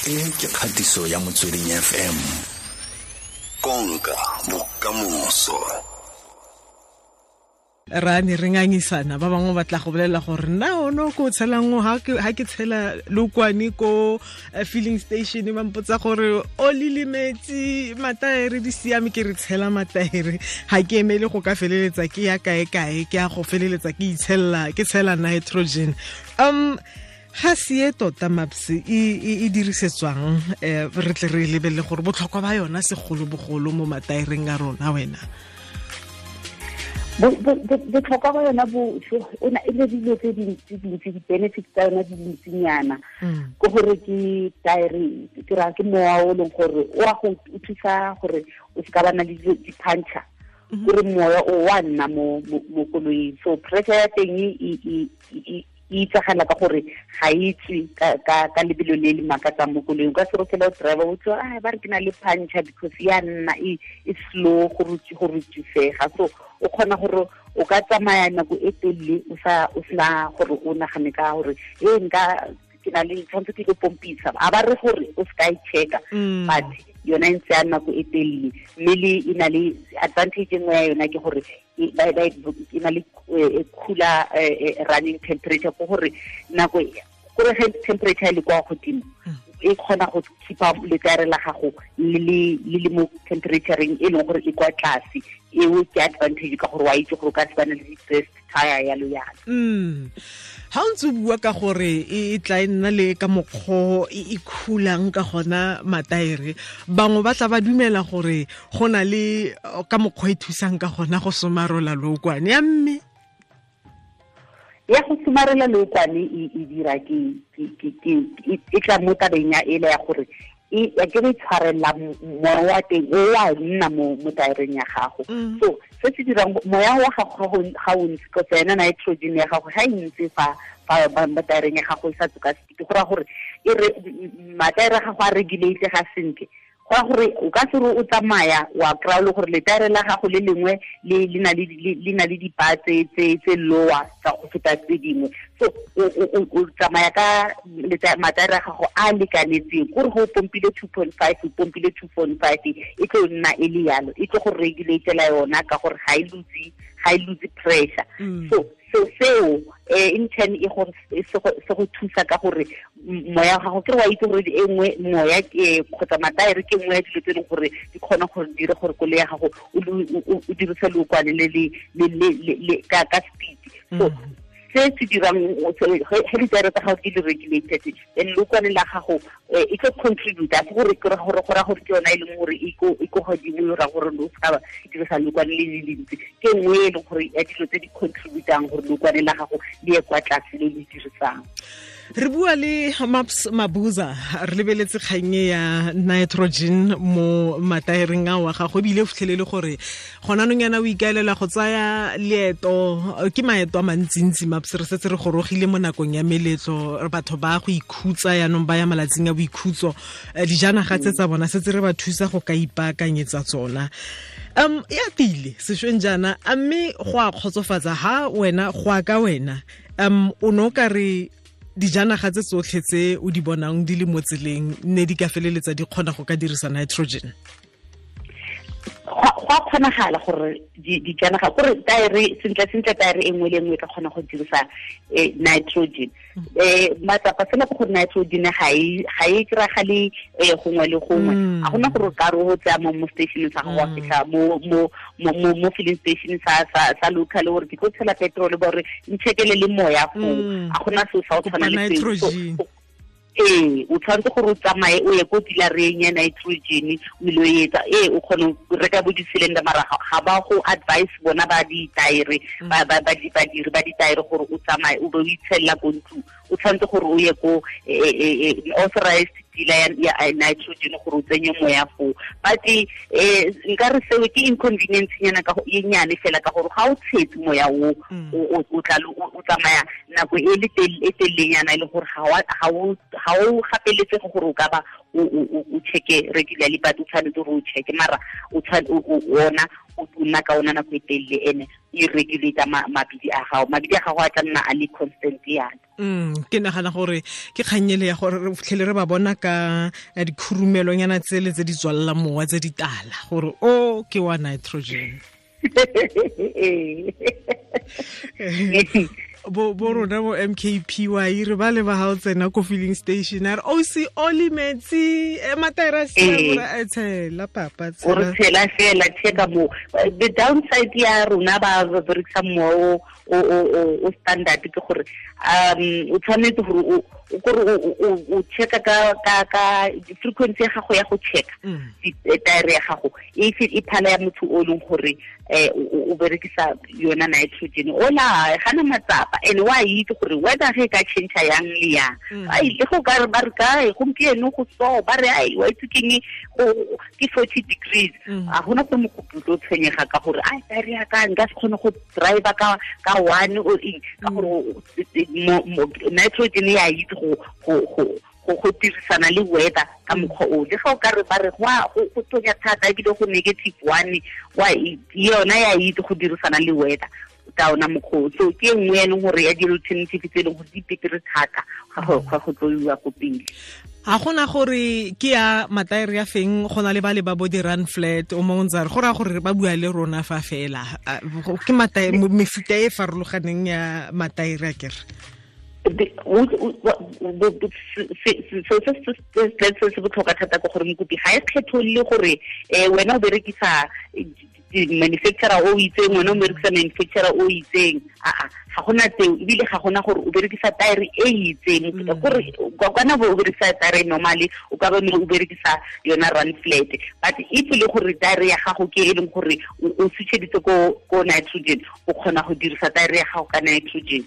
E ke kgatiso ya Motsweding FM. Konka bokamoso. Ra ne re ngangisana ba bangwe ba tla go bolela gore nna ono ko tshelang ha ke tshela lokwane ko filling station ba mpotsa gore o lile metsi mataere di siame ke re tshela mataere ha ke emele go ka feleletsa ke ya kae kae ke ya go feleletsa ke itshella ke tshela nitrogen. Ga se e tota Maps e dirisetswang re tle re lebelele gore botlhokwa ba yona segolobogolo mo mataereng a rona wena. Botlhokwa ba yona bo ona e le dilo tse dintsi dintsi di-benefits tsa yona di dintsinyana. Ke gore ke taere ke ra ke mowa o leng gore o a go thusa gore o se ka ba na le di-puncture. Gore moya o wa nna mo koloing. So pressure ya teng e itsagala ka gore ga e tswe ka lebelo le le makatsang mo koloing. Ka se re fela o driver o tswa a ba re ke na le puncture because ya nna e slow go rutsisega. So o kgona gore o ka tsamaya nako e telele o sena gore o nagane ka gore e nka ke na le tshwanetse ke go pompisa a ba re gore o se ka e checka, but yona e ntse ya nako e telele. Mme le e na le advantage e nngwe ya yona ke gore e na le cooler running temperature, ke gore nako gore ge temperature e le kwa godimo e kgona go keepa letaere la gago le le mo temperatureng e leng gore e kwa tlase. Eo ke advantage ka gore wa itse gore o ka se bane le di-stress tire yalo yalo. Ha o ntse o bua ka gore e tla e nna le ka mokgwa e khulang ka gona mataere, bangwe ba tla ba dumela gore go na le ka mokgwa e thusang ka gona go somarola lookwane ya mme. Ya go somarela lookwane e dira ke e tla mo tabeng ya ele ya gore e ke re tshwarela moya wa teng o wa nna mo taereng ya gago. So se se dirang moya wa gago ga o ntse kgotsa yona nitrogen ya gago ga e ntse fa mo taereng ya gago e sa tsoka speed, go raya gore e re mataere a gago a regulate ga sentle. Go raya gore o ka se re o tsamaya wa kry-a le gore letaere la gago le lengwe le na le dipa tse lower tsa go feta tse dingwe. So o tsamaya ka mataere a gago a lekanetseng, kore go pompile 2.5 o pompile 2.5 e tlo nna e le yalo, e tlo go regulatela yona ka gore ga e lose pressure. So seo in turn e gore se go thusa ka gore moya wa gago ke re wa itse gore e nngwe moya kgotsa mataere ke nngwe ya dilo tse e leng gore di kgona gore dire gore koloi ya gago o dirise lookwane le ka speed. So se se dirang ge ditaere tsa gago di le regulated then lookwane la gago e tlo contribute a se gore ke gore go raya gore ke yona e leng gore e ko godimo e raya gore o se ka dirisa lookwane le le lentsi. Ke nngwe e leng gore ya dilo tse di contributang gore lookwane la gago le ye kwa tlase le le dirisang. Re bua le Maps Mabuza re lebeletse kgang ya nitrogen mo mataereng a wa gago, ebile o fitlhelele gore gona nong yana o ikaelela go tsaya leeto ke maeto a mantsintsi. Maps re setse re gorogile mo nakong ya meletlo, batho ba go ikhutsa yanong ba ya malatsing a boikhutso, dijanaga tse tsa bona setse re ba thusa go ka ipaakanyetsa tsona. Ya tile sešweng jaana, a mme go a kgotsofatsa ha wena go a ka wena o no ka re dijanaga tse tsotlhe tse o di bonang di le mo tseleng ne di ka feleletsa di kgona go ka dirisa nitrogen? Go a kgonagala gore dijanaga kore taere sentle taere e nngwe le nngwe e ka kgona go dirisa nitrogen. Matsapa fela ke gore nitrogen ga e kry-agale gongwe le gongwe. A gona gore o ka re o tsaya mo station sa gago wa fitlha mo filling station sa local gore ke tlo tshela petrol ba gore nchekele le moya foo. A gona seo sa go tshwana le seo. O tshwanetse gore o tsamaye o ye ko dealereng ya nitrogen o ile o etsa o kgone go reka bo di-cylinder, mara ga ba go advice bona ba ditaere ba badiri ba ditaere gore o tsamaye o be o itshelela ko ntlong. O tshwanetse gore o ye ko authorized dealer ya nitrogen gore o tsenye moya foo. But nka re seo ke inconvenience nyana ka e nyane fela ka gore ga o tshetse moya o o tla o tsamaya nako e le telelenyana e le gore ga o gapeletsege gore o ka ba o checke regularly, but o tshwanetse gore o checke mara o ona o nna ka ona nako e telele ene e regulate mabidi a gago, mabidi a gago a tla nna a le constant yana. Ke nagana gore ke kganyele ya gore re fitlhele re ba bona ka dikhurumelonyana tsele tse di tswalla mowa tse di tala gore o ke wa nitrogen. Bo rona bo MKPY re ba le ba ha o tsena ko filling station a re o se oli metsi mataera a tshela papa tshela o re tshela fela checka mo. The downside ya rona ba berekisa mowa o standard ke gore o tshwanetse gore o kore o checka ka frequency ya gago ya go checka taere ya gago e phala ya motho o leng gore o berekisa yona nitrogen ola gana matsapa and wa itse gore weather ge ka change yang le yang ai le go ka ba re kae gompieno go so ba re ai wa itse keng go ke 40 degrees a gona go mokoputlo o tshwenyega ka gore ai taere ya ka nka se kgone go drive ka one o eng ka gore nitrogen ya itse go dirisana le weather ka mokgwa o le ga o ka re ba re go tonya thata ebile go -1 wa yona ya itse go dirisana le weather ka ona mokgwa. So ke nngwe ya leng gore ya di-alternative tse e leng gore di betere thata ga go tloiwa ko pele. Ha gona gore ke ya mataere ya feng go na le ba le ba bo di run flat o mongwe ntse re go raya gore ba bua le rona fa fela ke mataere mefuta e farologaneng ya mataere a kere. Se botlhokwa thata ke gore mokopi ga e kgetholole gore wena o berekisa manufacturer o itseng, wena o berekisa manufacturer o itseng, aa ga gona tseo, ebile ga gona gore o berekisa taere e itseng. Gore kana o berekisa taere normally o ka ba o berekisa yona run flat, but if le gore taere ya gago ke e leng gore o switcheditse ko nitrogen, o kgona go dirisa taere ya gago ka nitrogen.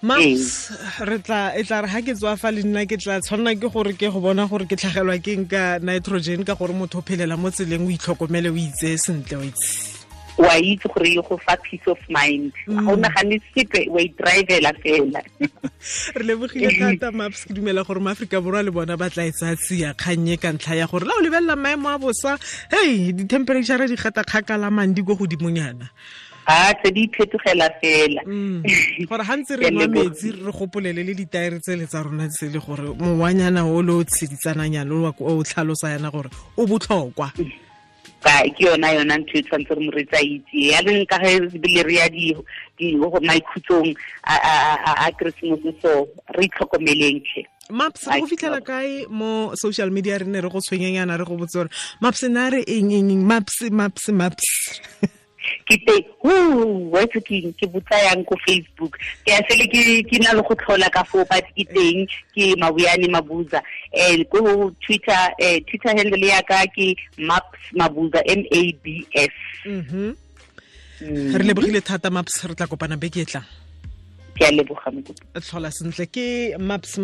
Maps re tla e tla re ha ke tswa fa le nna ke tla tshwanna ke gore ke go bona gore ke tlhagelwa ke eng ka nitrogen ka gore motho o phelela mo tseleng o itlhokomele o itse sentle o itse wa itse gore e go fa peace of mind, ga o nagane sepe, wa i-drivela fela. Re lebogile thata Maps, ke dumela gore maAforika Borwa le bona ba tla e tsaya tsia kgannye ka ntlha ya gore la o lebelela maemo a bosa, hei di-temperature di gata kgakala mandi ko godimonyana. A tse di phetogela fela. Gore ha ntse re nwa metsi re gopolele le ditaere tsele tsa rona tsele gore mowanyana o le o tsheditsananyana o tlhalosa yana gore o botlhokwa. Ka ke yona ntho e tshwanetse re moreetsi a itse ya leng ka ge bile re ya di maikhutsong a Keresemose, so re itlhokomeleng tlhe. Maps re go fitlhela kae mo social media re ne re go tshwenyanyana re go botse gore Maps na re eng eng Maps Maps Maps. Ke teng wa itse ke botsa yang ko Facebook, ke a sele ke na le go tlhola ka foo, but ke teng ke Mabuyane Mabuza. Ko Twitter, Twitter handle ya ka ke Maps Mabuza, MABS. Re lebogile thata Maps, re tla kopana beke e tlang. Ke a leboga mokopi. Tlhola sentle ke Maps.